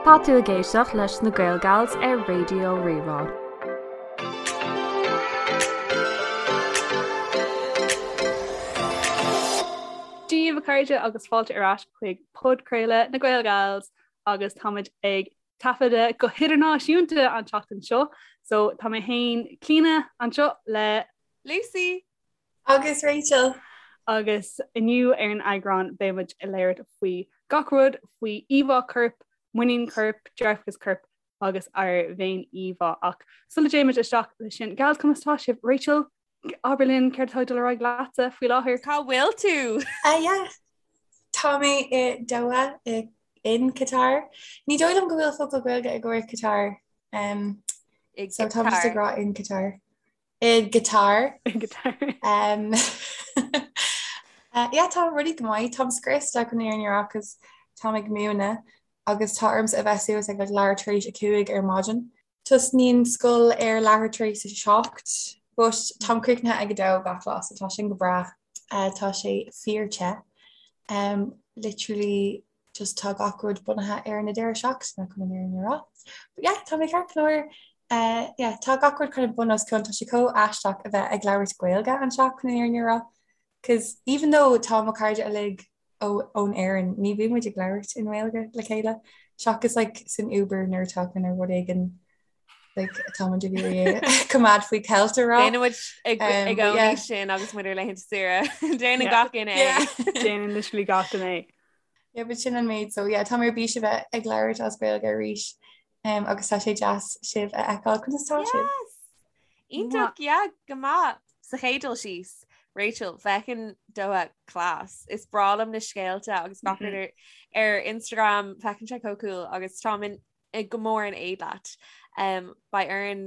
Tá tú ag éisteacht leis na Gaelgals ar Raidió Rí-Rá. Dia daoibh a chairde agus fáilte ar ais chuig podchraoladh na Gaelgals agus táimid ag taifeadadh go hidirnáisiúnta an tseachtain seo so tá mé féin Clíona anseo le Lucy! Agus Rachel. Agus inniu ar an eagrán beidh muid ag labhairt faoi gach rud faoi íomhá coirp, muinín coirp, dearfachas coirp agus ár bhféin-íomhá. Ach sula dtéimid isteach leis sin, gals conas tá sibh? Rachel, abair linn céard atá ag dul ar aghaidh leatsa faoi láthair? Cá bhfuil tú? Ah yeah. Tá mé i Doha i in Qatar. Ní dóigh liom go bhfuil focal Gaeilge i gcomhair Qatar. Um, I so tá mé ag gCatar. rá in Qatar. I gCatar. I gCatar. Um, uh, yeah, tá rudaí go maith, Táim scriosta chun an fhírinne a rá 'cause táim ag múineadh agus tá ormsa a bheith suas ag like, leathuair tar éis 5 ar maidin. Tosnaíonn scoil ar leathuair tar éis 7, but táim críochnaithe ag 2 gach lá, so tá sin go breá. Uh, tá sé fíor te. Um, literally just tá gach rud bunaithe ar na deireadh seachtaine chun an fhírinne a rá. But yeah, tá mé ceart go leor. Uh, yeah, tá gach rud kind of bun os cionn, tá sé chomh aisteach a bheith ag labhairt Gaeilge anseo chun an fhírinne a rá. Cos even though tá mo chairde uilig ó ón Éirinn, ní bhíonn muid ag labhairt i nGaeilge le chéile, seachas like san Uber nuair atá kind of rud éigin like atá muid ag iarraidh coimeád faoi cheilt a rá. Déanann muid i Um, but gcónaí yeah. sin agus muid ar laethanta saoire. Déanann Yeah. gach duine é. Yeah. Déanann literally gach duine é. Yeah, but sin an méid so yeah, tá mé ar bís a bheith ag labhairt as Gaeilge arís um, agus tá sé deas sibh a fheiceáil conas tá sibh. Yes! Iontach, yeah, go maith. Sa chéad dul síos, Rachel, feiceann Doha class. Is breá liom na scéalta agus gach rud ar, ar Instagram, feiceann sé chomh cool agus táim in, go mór in éad leat. Um, beidh orainn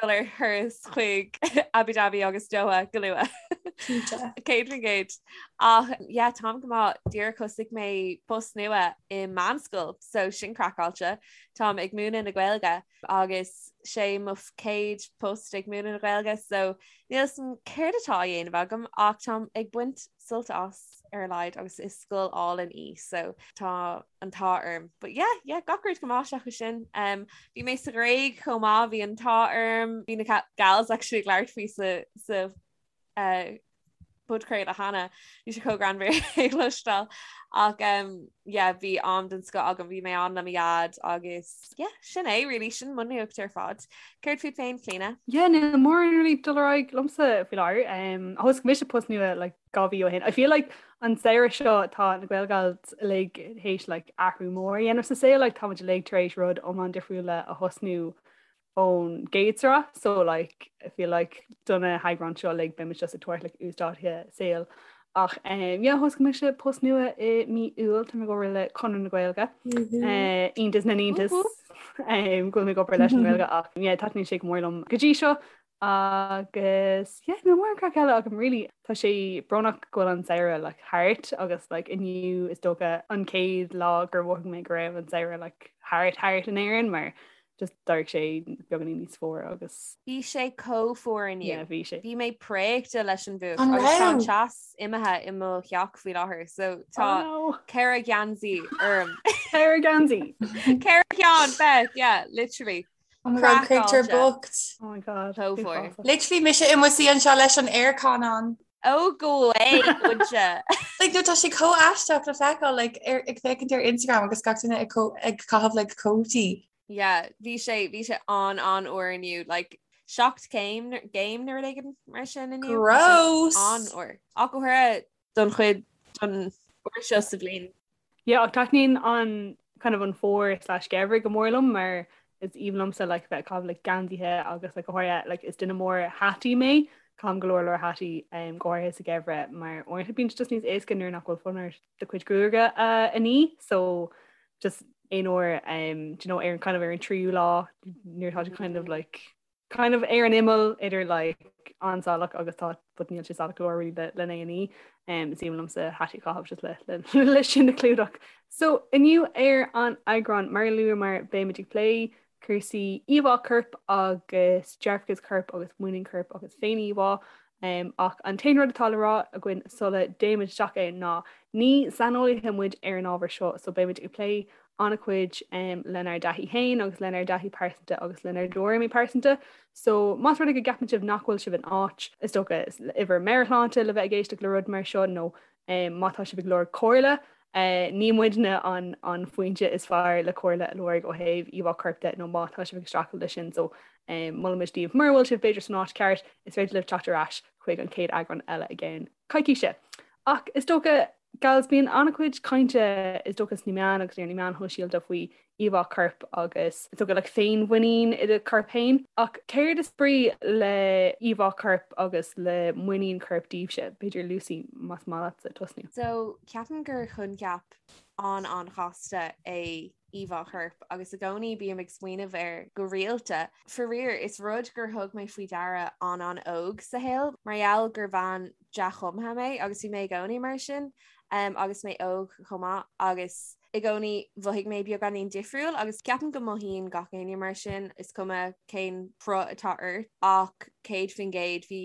dul ar thuras chuig Abu Dhabi agus Doha go luath. Cinnte. 100%. Ach yeah, táim go maith díreach thosaigh mé post nua i meánscoil, so sin craiceáilte. Táim ag múineadh na Gaeilge agus sé mo chéad post ag múineadh na Gaeilge, so níl a fhios agam céard atá á dhéanamh agam ach táim ag baint sult as ar a laghad agus is scoil álainn í so tá an t-ádh orm. But yeah, yeah, gach rud go maith seachas sin. Um, bhí mé sa Ghréig chomh maith, bhí an t-ádh orm, bhí na gals actually ag labhairt faoi sa, sa uh, podchraoladh cheana, bhí sé chomh greannmhar é a chloisteáil. Ach um, yeah, bhí am den scoth agam, bhí mé ann le mo dhaid agus yeah, sin é really, sin mo nuacht ar fad. Céard fút féin, Clíona? Yeah, níl mórán really dul ar aghaidh liomsa faoi láthair. Um, thosaigh mise post nua like, 2 mhí ó shin. I feel like an samhradh seo tá na Gaelgals uilig théis like, athrú mór a dhéanamh sa saol, like, táimid uilig tar éis rud iomlán difriúil a thosnú ón gcéad sraith so like, I feel like do na heagráin seo uilig beimid just ag tabhairt like, uasdátuithe saoil. Ach um, yeah, thosaigh mise post nua i mí Iúil, tá mé ag obair le Conradh na Gaeilge. Uh, iontas na n-iontas um, go bhfuil mé ag obair leis an nGaeilge ach yeah, taitníonn sé go mór liom go dtí seo agus yeah, níl mórán craic eile agam really. Tá sé brónach go bhfuil an samhradh like, thart agus like, inniu is dócha an chéad lá gur mhothaigh mé go raibh an samhradh like, thart thart in Éirinn mar just d'éirigh sé beagáinín níos fuaire agus. Bhí sé chomh fuar inniu. Yeah, bhí sé. Bhí mé préachta leis an bhfuacht An agus tá an raibh? teas imithe i mo theach faoi láthair so tá Oh no. 4 gheansaí orm. 4 gheansaí! 4 cheann, Beth, yeah, literally. Oh my god, créatúr Craiceáilte. bocht. Oh my god. Chomh fuar. Uafásach. Literally mise i mo suí anseo leis an aircon on. Oh go away, would you? Like no tá sé chomh aisteach le feiceáil like ar ag féachaint ar Instagram agus gach duine ag co- ag caitheamh like cótaí. Yeah, bhí sé bhí sé an an-fhuar inniu like 7 céim gcéim nó rud éigin mar sin inniu. Gross! An-fhuar. Ach go háirithe don chuid don uair seo sa bhliain. Yeah, ach taitníonn an kind of an fómhar slash geimhreadh go mór liom mar is aoibhinn liomsa like bheith ag caitheamh like geansaithe agus like go háirithe like is duine mór hataí mé, caithim go leor leor hataí um, go háirithe sa gheimhreadh mar uaireanta bíonn sé just níos éasca nuair nach bhfuil fonn ort do chuid gruaige a a ní so just aon uair um, do you know, ar an kind of ar an tríú lá nuair atá sé kind of like kind of ar an imeall idir like an-salach agus tá but níl sé salach go leor really le lena ní um, is aoibhinn liomsa hataí a chaitheamh just le, le, le sin a chlúdach. So inniu ar an eagrán mar a luamar beimid ag plé cúrsaí íomhá coirp agus dearfachas coirp agus muinín coirp agus féin-íomhá. Ach an t-aon rud atá le rá againn sula dtéimid isteach ann ná ní saineolaithe muid ar an ábhar seo so beimid ag plé an-chuid lenár dtaithí féin agus lenár dtaithí pearsanta agus lenár dtuairimí pearsanta. So más rud é go gceapann sibh nach bhfuil sibh in áit, is dócha, i bhur meabhairshláinte le bheith ag éisteacht le rud mar seo nó má tá sibh ag lorg comhairle, ní muidne an foinse is fearr le comhairle a lorg ó thaobh íomhá coirp de nó má tá sibh ag streachailt leis sin. So molaimid daoibh mura bhfuil sibh b'fhéidir san áit ceart, is féidir libh teacht ar ais chuig an chéad eagrán eile i gceann coicíse. Ach is dócha Gals, bíonn an-chuid cainte is dócha sna meáin agus ar na meáin shóisialta faoi íomhá coirp agus is dócha like féinmhuinín i do chorp féin. Ach céard is brí le íomhá coirp agus le muinín coirp daoibhse? B'fhéidir Lucy, más maith leatsa tosnú. So, ceapaim gur choincheap an-an-chasta é íomhá choirp agus i gcónaí bím ag smaoineamh air go rialta. Faraor, is rud gur thug mé faoi deara an-an-óg sa shaol mar gheall gur bhean dea-chumtha mé agus bhí mé i gcónaí mar sin um, agus mé óg chomh maith agus i gcónaí mhothaigh mé beagáinín difriúil agus ceapaim go mothaíonn gach éinne mar sin is cuma cén cruth atá ort ach 100% bhí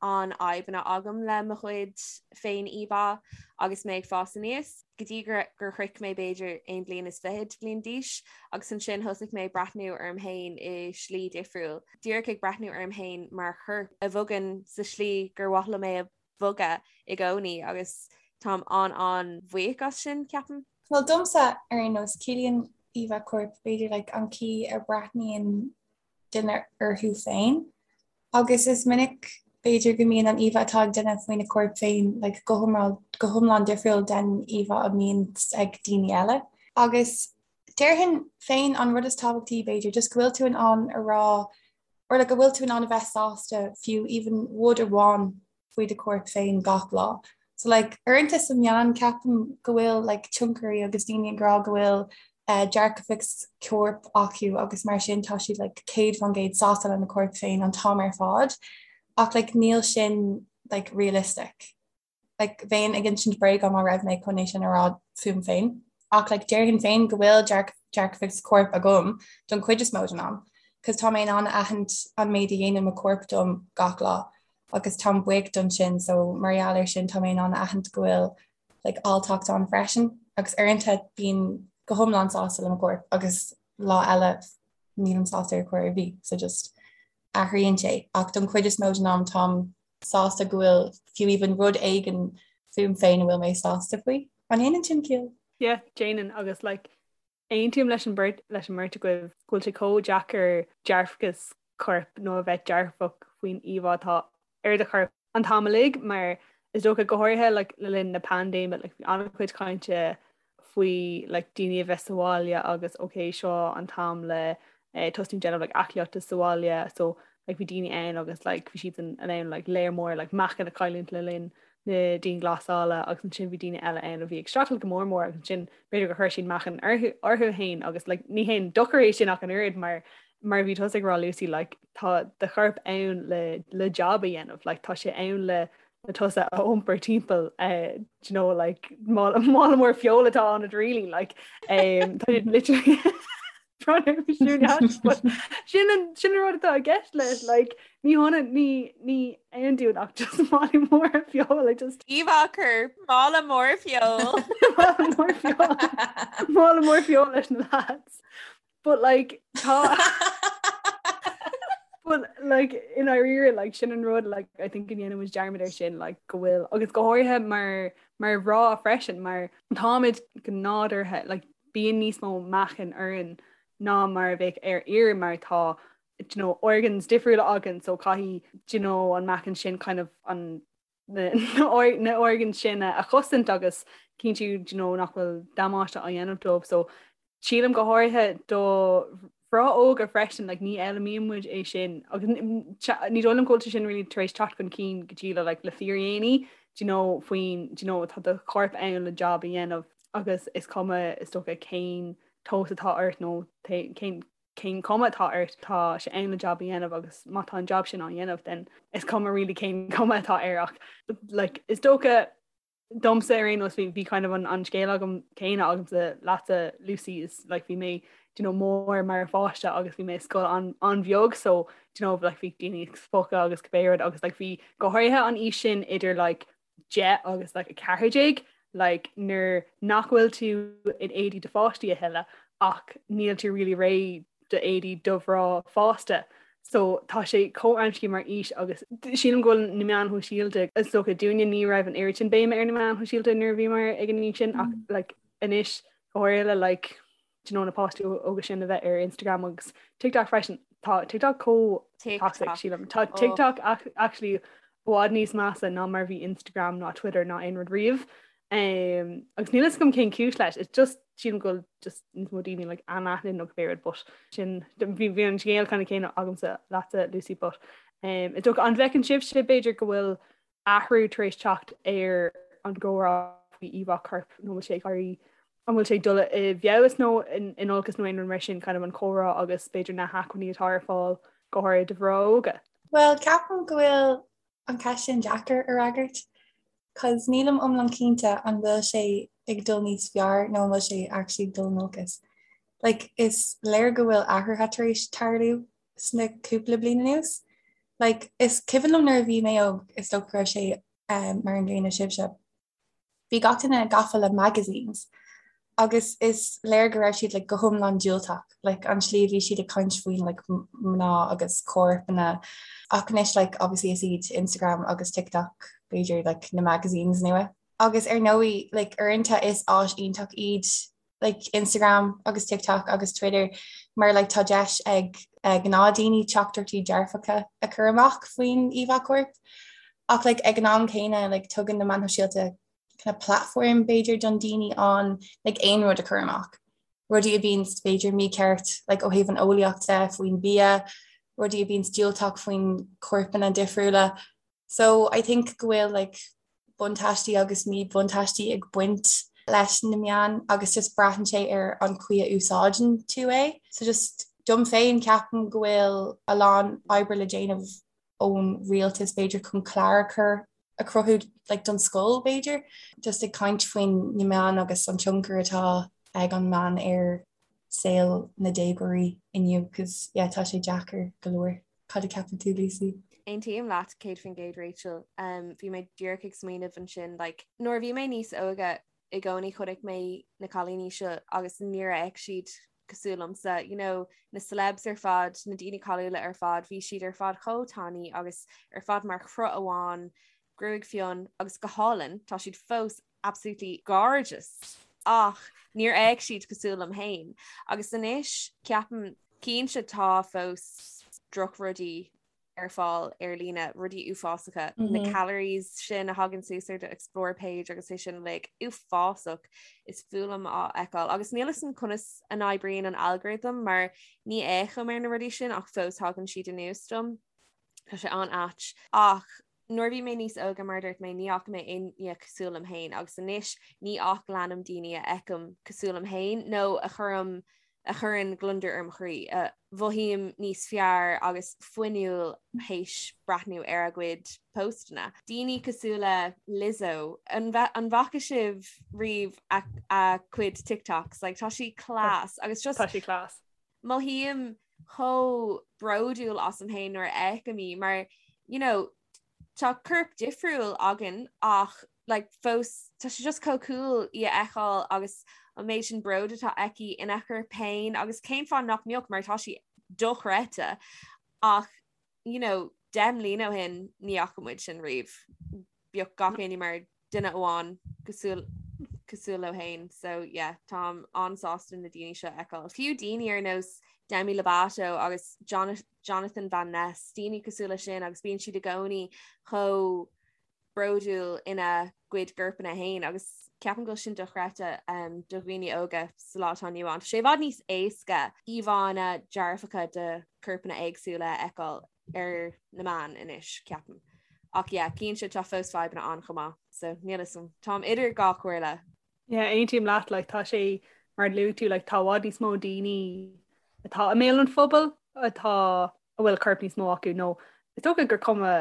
an-fhadhbanna agam le mo chuid féin-íomhá agus mé ag fás aníos, go dtí gur gur shroich mé b'fhéidir aon bhliain is fichead bliain d'aois agus ansin thosaigh mé ag breathnú orm féin i slí difriúil, díreach ag breathnú orm féin mar chorp a bhogann sa slí gur mhaith liom é a bhogadh i gcónaí agus táim an-an-bhuíoch as sin, ceapaim. Bhuel domsa ar aon nós, ciallaíonn íomhá coirp b'fhéidir like an chaoi a breathnaíonn duine orthu féin. Agus is minic, b'fhéidir, go mbíonn an íomhá atá ag duine faoina chorp féin like go hiomlán go hiomlán difriúil den íomhá a mbíonn ag daoine eile. Agus déarfainn féin an rud is tábhachtaí, b'fhéidir, just go bhfuil tú in ann a rá or like go bhfuil tú in ann a bheith sásta fiú even rud amháin faoi do chorp féin gach lá. So like uaireanta sna meáin ceapaim go bhfuil like tionchairí agus daoine ag rá go bhfuil eh, dearfachas coirp acu agus mar sin tá siad like 100% sásta lena corp féin an t-am ar fad ach like níl sin like realistic. Like bheinn ag insint bréaga má raibh mé chun é sin a rá fúm féin. Ach like déarfainn féin go bhfuil dearfachas coirp agam don chuid is mó den am, cos tá mé in ann a aithint an méid a dhéanann mo chorp dom gach lá. agus táim buíoch don sin so mar gheall ar sin tá mé in ann a aithint go bhfuil like alltacht ann freisin agus uaireanta bím go hiomlán sásta le mo chorp agus lá eile nílim sásta ar chor ar bith so just athraíonn sé ach don chuid is mó den am táim sásta go bhfuil fiú even rud éigin fúm féin a bhfuil mé sásta faoi. An ndéanann sin ciall? Yeah, déanann agus like aontaím leis an beirt leis an mbeirt agaibh go bhfuil sé chomh deacair dearfachas coirp nó a bheith dearfach faoin íomhá atá ar do chorp an t-am uilig mar is dócha go háirithe like, le linn na paindéime like, bhí an-chuid cainte faoi like, daoine a bheith sa bhaile agus ok seo an t-am le eh, tosnú déanamh like, aclaíochta sa bhaile so like, bhí daoine ann agus like, bhí siad in ann like, léar mór like, meáchan a chailliúint le linn na dianghlasála agus ansin bhí daoine eile ann a bhí ag streachailt go mór mór agus ansin b'fhéidir gur chuir siad meáchan orthu orthu féin agus like, ní haon dochar é sin ach an oiread mar mar bhí tusa ag rá Lucy like, tá do chorp ann le le job a dhéanamh like, tá sé ann le le tusa a iompar timpeall uh, do you know like mála mála mór feola atá ann really like um, tá siad literally Sin sin an rud atá i gceist leis like ní hionann ní ní aon dún ach just mála mór feola like just Íomhá coirp mála mór feoil. Mála mór feoil. Mála mór feoil leis na lads. But like tá But like i ndáiríre like sin an rud like I think go ndéanann muid dearmad ar sin like go bhfuil agus go háirithe mar mar mhná freisin mar táimid go nádúrtha like bíonn níos mó meáchain orainn ná mar a bheadh ar fhir mar tá do you know, organs difriúla againn so caithfidh do you know, an meáchan sin kind of an na, na organs sin a chosaint agus cinntiú do you know, nach bhfuil damáiste á dhéanamh dóibh so sílim go háirithe do mhná óga freisin like, ní fhoghlaimíonn muid é sin agus ní dóigh liom go bhfuil sé sin really tar éis teacht chun cinn go dtí le like, le fíordhéanaí do you know, faoin do you know, tá do chorp ann le job a dhéanamh agus is cuma is dócha cén tomhas atá ort nó cén cén cuma atá ort tá sé ann le job a dhéanamh agus má tá an job sin á dhéanamh then is cuma really cén cuma atá air ach like, is dócha domsa ar aon nós bhí bhí kind of an, an scéal agam céanna agamsa leatsa Lucy is like bhí mé do you know, mór mar pháiste agus bhí mé i scoil an, an-bheag so. you know like bhí daoine ag spochadh agus cibé rud agus like bhí go háirithe an aois sin idir like 10 agus like 14 like nuair nach bhfuil tú in éadaí do pháistí a thuilleadh ach níl tú really réidh do éadaí do mhná fásta. So tá sé chomh amscaí mar aois agus sílim go bhfuil na meáin shóisialta is dócha dúinne ní raibh an oiread sin béime ar na meáin shóisialta nuair a bhíomar ag an aois sin ach like anois go háirithe le like do you know na páistí óga sin a bheith ar Instagram agus TikTok freisin. Tá TikTok chomh toxic sílim. Tá oh. TikTok actually i bhfad níos measa ná mar bhí Instagram ná Twitter ná aon rud riamh. Um, agus níl a fhios agam cén cúis leis, it's just sílim go bhfuil just níos mó daoine like anaithnid nó cibé rud but sin bhí bhí an scéal kind of céanna agamsa leatsa Lucy but um, is dócha an bhfeiceann sibhse b'fhéidir go bhfuil athrú tar éis teacht ar an gcomhrá faoi íomhá coirp nó bhfuil sé ag éirí an bhfuil sé ag dul i bhfeabhas nó in olcas nó aon rud mar sin kind of an comhrá agus b'fhéidir na hacmhainní atá ar fáil go háirithe do mhná óga? Bhuel, ceapaim go bhfuil an cheist sin deacair a fhreagairt cos nílim iomlán cinnte an bhfuil sé ag dul níos fearr nó an bhfuil sé actually ag dul in olcas. Like, is léir go bhfuil athruithe tar éis tarlú sna cúpla bliain anuas. Like, is cuimhin liom nuair a bhí mé óg, is dócha go raibh sé um, mar an gcéanna sibhse. Bhí gach duine gafa le magazines agus is léir go raibh siad like, go hiomlán diúltach, like, an slí a bhí siad ag caint faoin like, mná agus corpanna. Ach anois like, obviously is iad Instagram agus TikTok b'fhéidir like, na magazines nua. Agus ar ndóigh like, uaireanta is áis iontach iad like Instagram agus TikTok agus Twitter mar like tá deis ag gnáthdaoine teachtaireachtaí dearfacha a chur amach faoin íomhá coirp. Ach like ag an am céanna like tugann na meáin shóisialta kind of platform b'fhéidir don daoine an like aon rud a chur amach. Rudaí a bhíonn b'fhéidir mícheart like ó thaobh an eolaíocht de faoin bia, rudaí a bhíonn diúltach faoin corpanna difriúla. So I think go bhfuil like buntáistí agus míbhuntáistí ag baint leis na meáin agus just braitheann sé ar an chaoi a úsáideann tú é. So just dom féin ceapaim go bhfuil a lán oibre le déanamh ón rialtas b'fhéidir chun clár a chur a chruthú like don scoil b'fhéidir, just ag caint faoin na meáin agus an tionchar atá ag an meán ar saol na déagóirí inniu cos yeah tá sé deacair go leor. Cad a ceapann tú, Lucy? Aontaím leat 100% Rachel. Um, bhí mé díreach ag smaoineamh ansin like, nuair a bhí mé níos óige i gcónaí chonaic mé na cailíní seo agus níor fhéach siad cosúil liomsa, you know, na celebs ar fad, na daoine cáiliúla ar fad, bhí siad ar fad chomh tanaí agus ar fad mar chruth amháin, gruaig fionn agus go hálainn, tá siad fós absolutely gorgeous ach níor fhéach siad cosúil liom féin. Agus anois ceapaim cinnte tá fós drochrudaí ar fáil ar líne, rudaí uafásacha, mm -hmm. na mhm. calories sin a thagann suas ar do explore page agus é sin like uafásach is fuath liom á fheiceáil. Agus níl fhios agam conas a n-oibríonn an algorithm mar ní fhéachaim ar na rudaí sin ach fós thagann siad anuas dom. Tá sé an-ait ach Nuair a bhí mé níos óige, mar a dúirt mé, ní fhaca mé éinne cosúil liom féin agus anois ní ach leanaim daoine a fheicim cosúil liom féin nó a chuirim a chuireann gliondar ar mo chroí, a mhothaím níos fearr agus fuinniúil théis breathnú ar a gcuid póstanna. Daoine cosúil le Lizzo, an bhfaca sibh riamh a a cuid TikToks? Like tá sí class agus just Tá sí class. Mothaím chomh bródúil asam féin nuair a fheicim í mar you know tá corp difriúil againn ach like fós tá sé just chomh cool í a fheiceáil agus an méid sin bród atá aici ina corp féin agus cén fáth nach mbeadh mar tá sí dochreidte ach you know, 10 mbliana ó shin ní fhaca muid sin riamh. Bhíodh gach éinne mar duine amháin cosúil cosúil leo féin so yeah táim an-sásta na daoine seo a fheiceáil. Fiú daoine ar nós Demi Lovato agus Jonathan Van Ness, daoine cosúil le sin agus bíonn siad i gcónaí chomh bródúil ina gcuid gcorpanna féin agus ceapaim go bhfuil sin dochreidte um, do dhaoine óga sa lá atá inniu ann. Tá sé i bhfad níos éasca íomhánna dearfacha de chorpanna éagsúla a fheiceáil ar na meáin anois, ceapaim. Ach yeah, cinnte tá fós fadhbanna ann chomh maith, so níl fhios agam. Táim idir dhá chomhairle. Yeah, aontaím leat, like, tá sé mar a luaigh tú, like, tá i bhfad níos mó daoine atá i mbéal an phobail atá a bhfuil corp níos mó acu nó is dócha gur cuma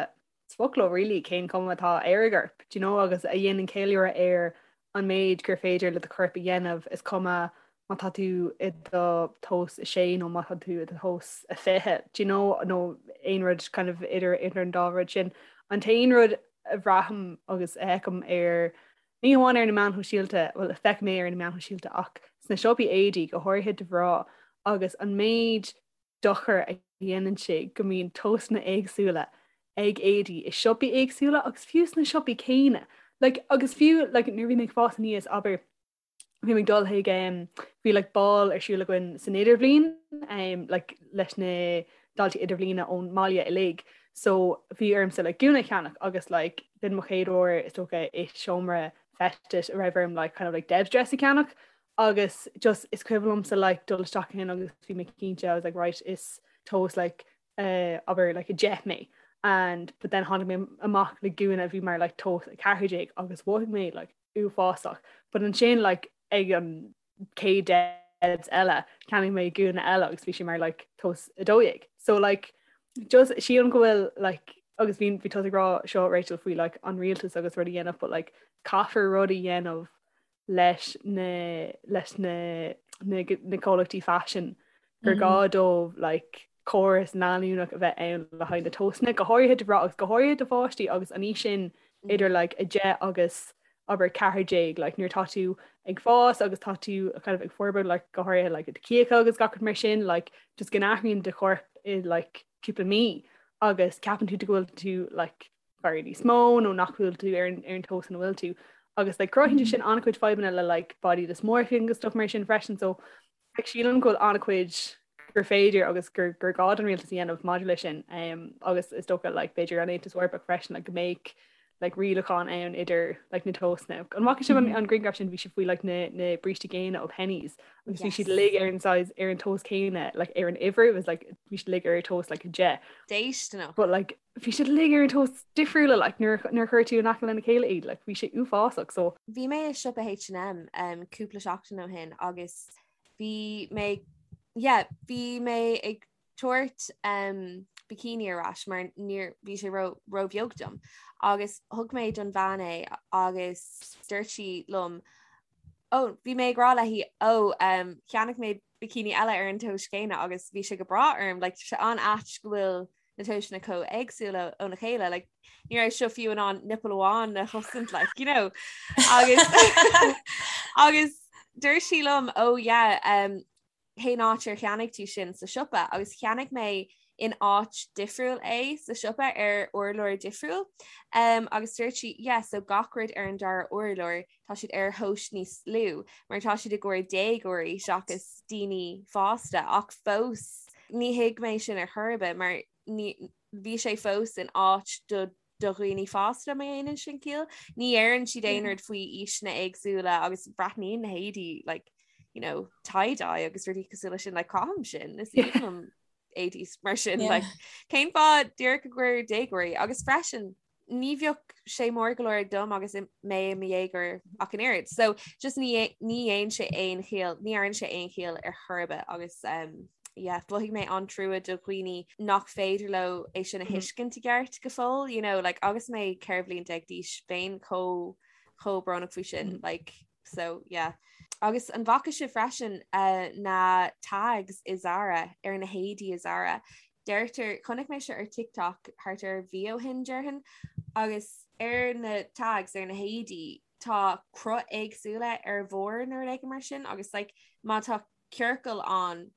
is fuath leo really cén cuma atá ar a gcorp, do you know, agus a dhéanann ceiliúradh ar an méid gur féidir le do chorp a dhéanamh, is cuma má tá tú i do thomhas 6 nó má tá tú i do thomhas 20, do you know, nó aon rud kind of idir idir an dá rud sin. An t-aon rud a bhraithim agus a fheicim ar ní hamháin ar na meáin shóisialta, bhuel a feicim é ar na meáin shóisialta ach sna siopaí éadaí go háirithe do mhná agus an méid dochar a dhéanann sé go mbíonn tomhasanna éagsúla ag éadaí i siopaí éagsúla agus fiú sna siopaí céanna. Like, agus fiú like, nuair a bhí mé ag fás aníos, abair, bhí mé ag dul chuig um, bhí like, bál ar siúl againn san idirbhliain um, like, leis na daltaí idirbhliana ón mbaile uilig. So bhí ormsa like, gúna a cheannach agus like, b'in mo chéad uair is dócha i seomra feistis a raibh orm like, kind of like Debs dress a cheannach agus just is cuimhin liomsa like dul isteach ann agus bhí mé cinnte I was like right is tomhas like uh, abair like 10 mé and but then tháinig mé amach le gúna a bhí mar like tomhas 14 agus mhothaigh mé like uafásach but ansin like ag an chéad Debs eile cheannaigh mé gúna eile agus bhí sé mar like tomhas 12 so like just sílim go bhfuil like agus bhí bhí tú ag rá seo Rachel faoi like an rialtas agus rud a dhéanamh but like caithfear rud a dhéanamh leis na leis na na na comhlachtaí faisin gur gá dóibh like córas leanúnach a bheith ann le haghaidh na tomhasanna, go háirithe do mhná agus go háirithe do pháistí agus an aois sin idir like 10 agus abair 14 like nuair atá tú ag fás agus tá tú kind of ag forbairt like go háirithe like do chíocha agus gach rud mar sin like just go n-athraíonn do chorp i like cúpla mí agus ceapann tú go bhfuil tú like barra níos mó nó nach bhfuil tú ar an ar an tomhas ina bhfuil tú agus like cruthaíonn sé sin an-chuid fadhbanna le like body dysmorphia agus stuff mar sin freisin so like sílim go bhfuil an-chuid gur féidir agus gur gur gá don rialtas a dhéanamh maidir leis sin um, agus is dócha like b'fhéidir an Aontas Eorpach freisin like go mbeadh like rialachán ann idir like na tomhasanna. An bhfaca sibh an, an grianghraf sin bhí sé faoi like na, na brístí géine ó Penneys agus bhí siad uilig ar an size ar an tomhas céanna like ar an uimhir it was like bhí siad uilig ar tomhas like 10. Déisteanach. But like bhí siad uilig ar an tomhas difriúla like nuair nuair a chuir tú in aice lena chéile iad like bhí sé uafásach so Bhí mé i siopa H&M um, cúpla seachtain ó shin agus bhí mé yeah, bhí mé ag tabhairt um, bikini ar ais mar níor bhí sé ró róbheag dom agus thug mé don bhean é agus dúirt sí liom ó bhí mé ag rá léi ó um, cheannaigh mé bikini eile ar an tomhas céanna agus bhí sé go breá orm like, sé an-ait go bhfuil na tomhaiseanna chomh éagsúil óna chéile like ní raibh seo fiú in ann nipple amháin a chosaint like you know agus agus dúirt sí liom oh yeah um, cén áit ar cheannaigh tú sin sa siopa agus cheannaigh mé in áit difriúil é sa siopa ar urlár difriúil um, agus dúirt sí yeah so gach rud ar an dara urlár tá siad ar thomhas níos lú mar tá siad i gcomhair déagóirí seachas daoine fásta ach fós ní thuig mé sin ar chor ar bith mar ní bhí sé fós in áit do do dhaoine fásta má dhéanann sin ciall. Ní deireann siad aon rud faoi aoiseanna éagsúla agus breathnaíonn na héadaí like you know tie dye agus rudaí cosúil leis sin like caithim sin is aoibhinn liom éadaí mar sin like cén fáth díreach i gcomhair déagóirí agus freisin ní bheadh sé mór go leor dom agus mé i mo dhéagóir ach an oiread. So just ní ní dhéanann sé aon chiall, ní dhéanann sé aon chiall ar chor ar bith agus um, yeah, mhothaigh mé an-trua do dhaoine nach féidir leo é sin a mhm. thuiscint i gceart go fóill, you know, like, agus mé 14 bhliain d'aois bheinn chomh chomh brónach faoi sin, mm -hmm. like, so yeah. Agus an bhfaca sibh freisin uh, na tags i Zara ar na héadaí i Zara. Deirtear, chonaic mé seo ar TikTok thart ar mhí ó shin déarfainn, agus ar na tags ar na héadaí tá cruth éagsúla ar bharr nó rud éigin mar sin agus like, má tá ciorcal ann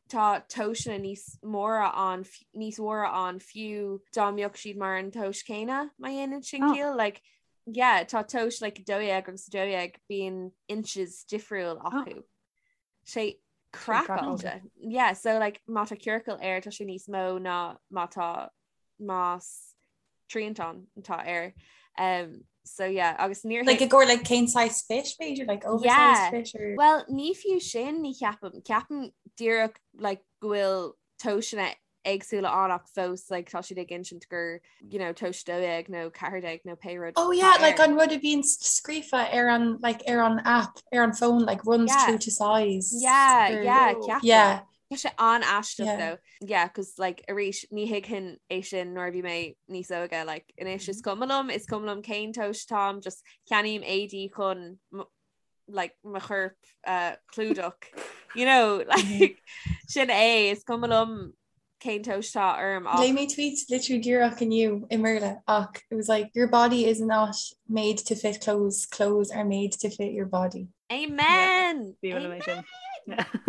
tá tomhaiseanna níos móra ann níos mhóra ann fiú dá mbeadh siad mar an tomhas céanna má dhéanann sin oh. ciall like yeah tá tomhas like 12 agus 12 bíonn inches difriúil oh. acu. Oh. Sé craiceáilte. Yeah, so like má tá ciorcal air tá sé níos mó ná má tá más triantán atá air. Um, so yeah, agus níor Like i gcomhair like cén size fit b'fhéidir like oversized Yeah. fit or Well, ní fiú sin ní cheapaim. Ceapaim díreach like go bhfuil tomhaiseanna éagsúla ann ach fós like tá siad ag insint gur you know tomhas 12 nó 14 nó pé rud Oh yeah, like an rud a bhíonn scríofa ar an like ar an app ar an phone like runs Yeah. true to size. Yeah, Or- yeah, ceapaim. Yeah. Tá sé an-aisteach Yeah. though. Yeah, cos like arís ní thuigfinn é sin nuair a bhí mé níos óige like anois is cuma liom, is cuma liom cén tomhas táim, just ceannaím éadaí chun m- like mo chorp a chlúdach you know like sin é is cuma liom cén tomhas atá orm ach Léigh mé tweet literally díreach inniu i mBéarla ach it was like your body is not made to fit clothes, clothes are made to fit your body. Amen! Amen!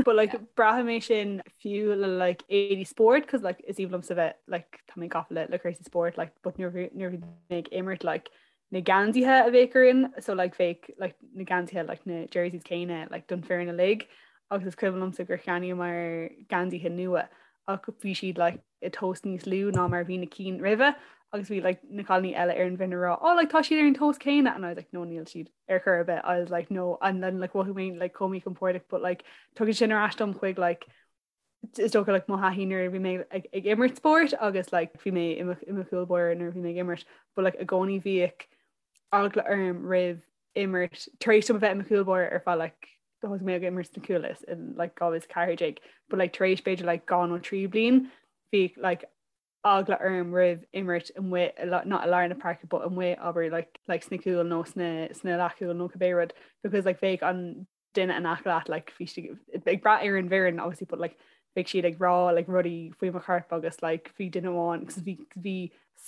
But like braithim é sin fiú le like éadaí spóirt cos like is aoibhinn liomsa bheith like tá mé gafa le le cúrsaí spóirt like but nuair nuair bhí mé ag imirt like na geansaithe a bheadh orainn so like bheadh like na geansaithe like na jerseys céanna like don foireann uilig agus is cuimhin liomsa gur cheannaíomar geansaithe nua ach bhí siad like i tomhas níos lú ná mar bhí na cinn roimhe agus bhí like na cailíní eile ar an bhfoireann ag rá oh like tá siad ar an tomhas céanna and I was like no níl siad ar chor ar bith I was like no and then like mhothaigh mé like chomh míchompordach but like tugann sin ar ais dom chuig like is dócha like mo thaithí nuair a bhí mé ag, ag imirt spóirt agus like bhí mé i mo, i mo chúl báire nuair a bhí mé ag imirt but like i gcónaí bhíodh eagla orm roimh imirt tar éis dom a bheith i mo chúl báire ar feadh like thosaigh mé ag imirt sna cúil in like 2014 but like tar éis b'fhéidir like 2 nó 3 bliain bhí like eagla orm roimh imirt amuigh not i lár na páirce but amuigh abair like like sna cúil nó sna sna leathchúil nó cibé rud because like bheadh an duine in aice leat like bhí siad ag brath ar an bhfoireann obviously but like bheadh siad ag rá like rudaí faoi mo chorp agus like bhí duine amháin because bhí bhí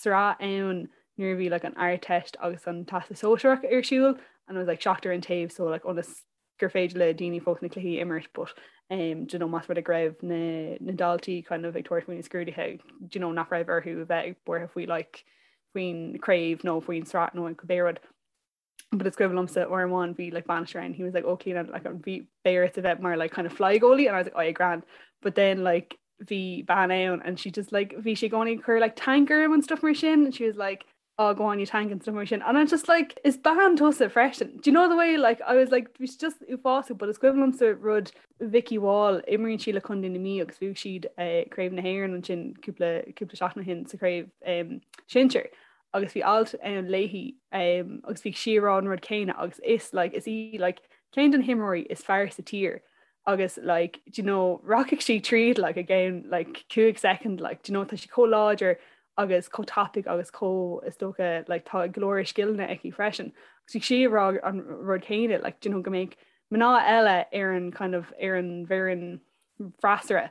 sraith ann nuair a bhí like an Ardteist agus an Teastas Sóisearach ar siúl and it was like seachtar an taobh so like ionas gur féidir le daoine fós na cluichí a imirt but um, do you know, más rud é go raibh na, na daltaí kind of ag tabhairt faoi na scrúduithe do you know, nach raibh orthu a bheith buartha faoi like faoin craobh nó faoin sraith nó an cibé rud. but is cuimhin liomsa uair amháin bhí like bainisteoir ann he was like oh Clíona like an bhí beidh ort a bheith mar like kind of fly goalie and I was like oh yeah grand but then like bhí bean ann and she just like bhí sí i gcónaí ag cur like tank orm and stuff mar sin and she was like oh go on you tank and stuff mar sin and I'm just like is bean tusa freisin do you know the way like I was like bhí sí just uafásach but is cuimhin liomsa rud Vicky Wall imríonn sí le Contae na Mí agus bhuaigh siad eh, Craobh na hÉireann ansin cúpla cúpla seachtain ó shin sa chraobh um, sinsir agus bhí alt ann léi agus bhí sí ag rá an rud céanna agus is like is í like ceann de na himreoirí is fearr sa tír agus like do you know rachaidh sí tríd like i gceann like 5 second like do you know tá sí chomh láidir agus chomh tapaidh agus chomh is dócha like tá go leor scileanna aici freisin agus bhí sí ag rá an rud céanna like do you know go mbeadh mná eile ar an kind of ar an bhfoireann freasúra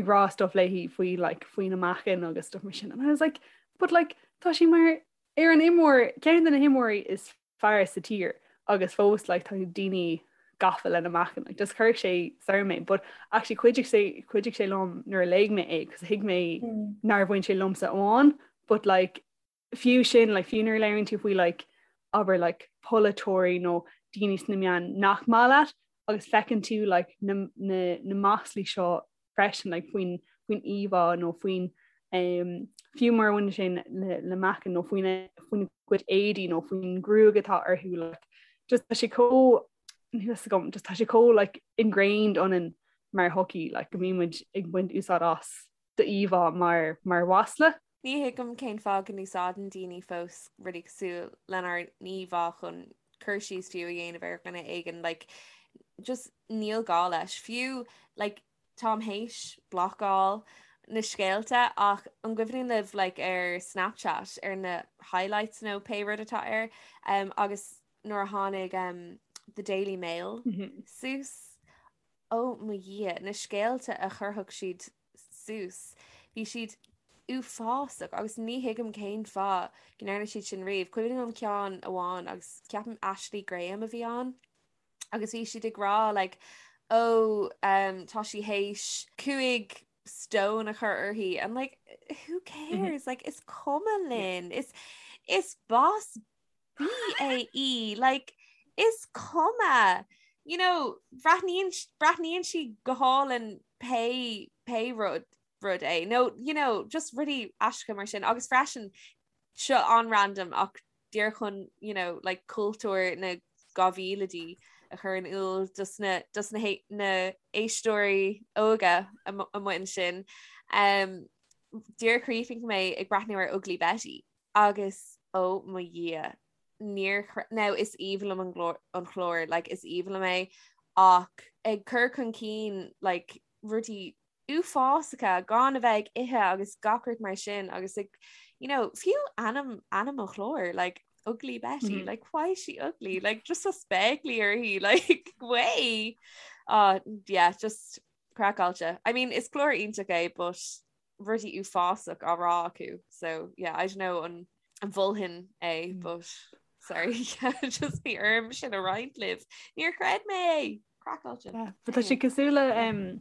ag rá stuff léi faoi like faoina meáchan agus stuff mar sin and I was like but like tá sí mar ar an imreoir ceann de na himreoirí is fearr sa tír agus fós like tá daoine gafa lena meáchan like just chuir sé soir mé but actually chuidigh sé chuidigh sé liom nuair a léigh mé é cos thuig mé mm. nár bhain sé liomsa amháin but like fiú sin like fiú nuair a labhraíonn tú faoi like abair like polaiteoirí nó daoine sna meáin nach maith leat agus feiceann tú like na, na, na maslaí seo freisin like faoin faoin íomhá nó faoin um, fiú mura mbaineann sé le, le meáchan nó faoin faoina gcuid éadaí nó faoin gruaig atá orthu like just tá sé chomh agam just tá sé chomh like ingrained ionainn mar shochaí like go mbíonn muid ag baint úsáid as d'íomhá mar mar mhasla. Ní thuigim cén fáth go n-úsáideann daoine fós rudaí cosúil lenár n-íomhá chun cur síos fiú a dhéanamh ar dhuine éigin like just níl gá leis. Fiú like táim théis blocáil na scéalta ach an gcuimhníonn libh like ar Snapchat ar na highlights nó pé rud atá air um, agus nuair a tháinig um, The Daily Mail mm -hmm. suas Ó mo Dhia, na scéalta a chuirfeadh siad suas, bhí siad uafásach agus ní thuigim cén fáth go ndearna siad sin riamh. Cuimhin liom ceann amháin agus ceapaim Ashley Graham a bhí ann agus bhí siad ag rá like ó um, tá sí théis 5 stone a chur uirthi and like who cares like is cuma linn is is boss BAE like is cuma you know breathnaíonn breathnaíonn sí go hálainn pé pé rud rud é nó you know just rudaí aisteacha mar sin agus freisin seo an-random ach díreach chun you know like cultúr na 2000idí a chur in iúl dos na dos na na éisteoirí óga amuigh ansin um, díreach chríochnaigh mé ag breathnú ar Ugly Betty Agus ó mo Dhia, níor now is aoibhinn liom an glór an chlár like is aoibhinn liom é ach ag cur chun cinn like rudaí uafásacha gan a bheith ag ithe agus gach rud mar sin agus ag you know fiú ainm ainm an chláir like. Ugly Betty, mm -hmm. like why is she ugly? Like just a spéaclaí uirthi, like way. Uh, yeah, just craiceáilte. I mean, is clár iontach é, but rudaí uafásach á rá acu. So yeah, I don't know an an mholfainn é, mm. but sorry, yeah, just bhí orm sin a roinnt libh. Níor chreid mé é. Craiceáilte. Yeah, but tá sé cosúil le um,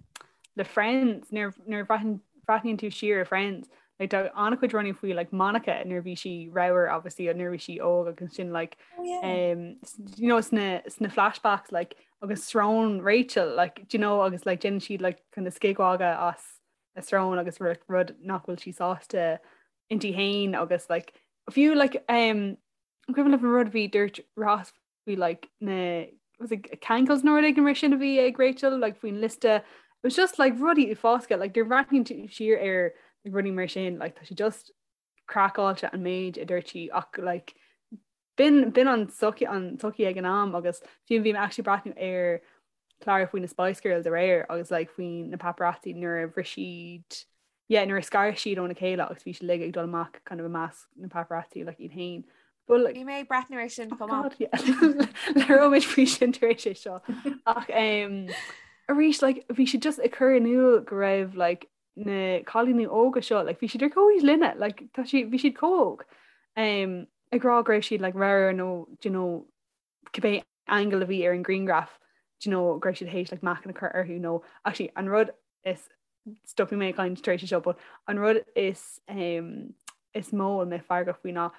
le Friends nuair nuair bhreathnaíonn tú siar ar Friends like tá an-chuid rudaí faoi like Monica nuair bhí sí ramhar obviously nuair bhí sí óg agus sin like oh, yeah. um, you know sna sna flashbacks like agus srón Rachel like do you know agus like déanann siad like kind of scigmhagadh as a srón agus rud nach bhfuil sí sásta inti féin agus like fiú like um an cuimhin libh an rud bhí dúirt Ross faoi like na was it cankles nó rud éigin mar sin a bhí ag Rachel like faoin liosta it was just like rudaí uafásacha like nuair a bhreathnaíonn tú siar ar like, rudaí mar sin like tá sé just craiceáilte an méid a dúirt sí ach like b'in b'in an sochaí an tsochaí ag an am agus fiú bhí mé actually breathnú ar clár faoi na Spice Girls aréir agus like faoi na paparazzi nuair a bhris siad yeah nuair a scar siad óna chéile agus bhí siad uilig ag dul amach kind of i measc na paparazzi like iad féin. But like Bhí mé ag breathnú ar sin chomh maith. Labhróimid faoi sin tar éis é seo. Ach um, arís like bhí siad just ag cur in iúl go raibh like na cailíní óga seo like bhí siad ar comhaois linne like tá si bhí siad chomh hóg um, ag rá go raibh siad like ramhar nó you know cibé angle a bhí ar an grianghraf do you know go raibh siad théis like meáchan a chur orthu nó actually an rud is stopfaidh mé ag caint tar éis seo but an rud is um, is mó a mé feargach faoi ná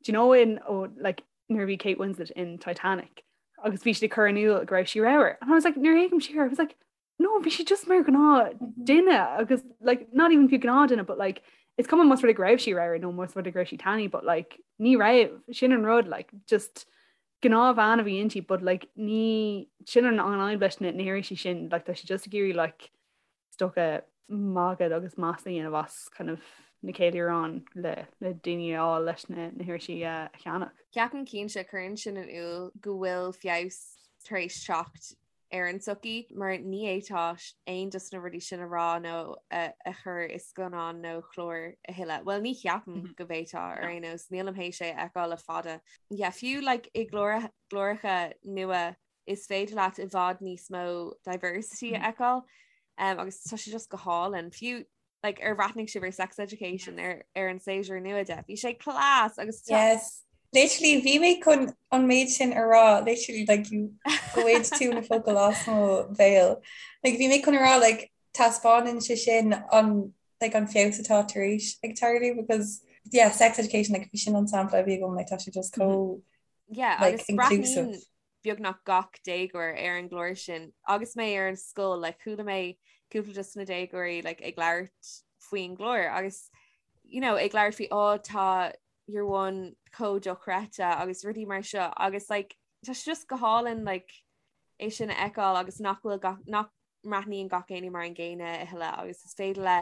do you know in oh, like nuair a bhí Kate Winslet in Titanic agus bhí siad ag cur in iúl go raibh sí ramhar and I was like nuair a fhéachaim siar I was like no bhí sí just mar gnáth mhm. duine agus like not even fiú gnáth duine but like it's cuma más rud go raibh sí ramhar nó más rud go raibh sí tanaí but like ní raibh sin an rud like just gnáthbhean a bhí inti but like ní sin an an fhadhb leis na hirisí sin like tá sé just ag iarraidh like is dócha magadh agus masla a dhéanamh as kind of na ceiliúráin le le daoine a fháil leis na na hirisí a cheannach. Ceapaim cinnte cuireann sin in iúl go bhfuil feabhas tar éis teacht ar an tsochaí mar ní fhéadfá aon dos na rudaí sin a rá nó a chur i scannán nó chlár a thuilleadh. Well ní cheapaim mhm. go bhféadfá ar aon nós nílim théis é a fheiceáil le fada. Yeah, fiú like, i gcláracha nua is féidir leat i bhfad níos mó diversity a mhm. fheiceáil um, agus tá sé just go hálainn. Fiú like ar bhreathnaigh sibh ar Sex Education ar ar an séasúr nua de. Bhí sé class agus Yes. Literally bhí mé chun an méid sin a rá literally like you ghoid tú na focail as mo bhéal. Like bhí mé chun a rá like taispeánann sé sin an like an feabhas atá tar éis ag tarlú because yeah sex education like bhí sin an sampla a bhí agam like tá sé just chomh yeah like agus inclusive. breathnaíonn beagnach gach déagóir ar an gclár sin agus mé ar an scoil like chuala mé cúpla dos na déagóirí like ag labhairt faoin gclár agus you know ag labhairt faoi oh tá year one chomh dochreidte agus rudaí mar seo agus like tá sé just go hálainn like é sin a fheiceáil agus nach bhfuil gach nach mbreathnaíonn gach éinne mar an gcéanna a thuilleadh agus is féidir le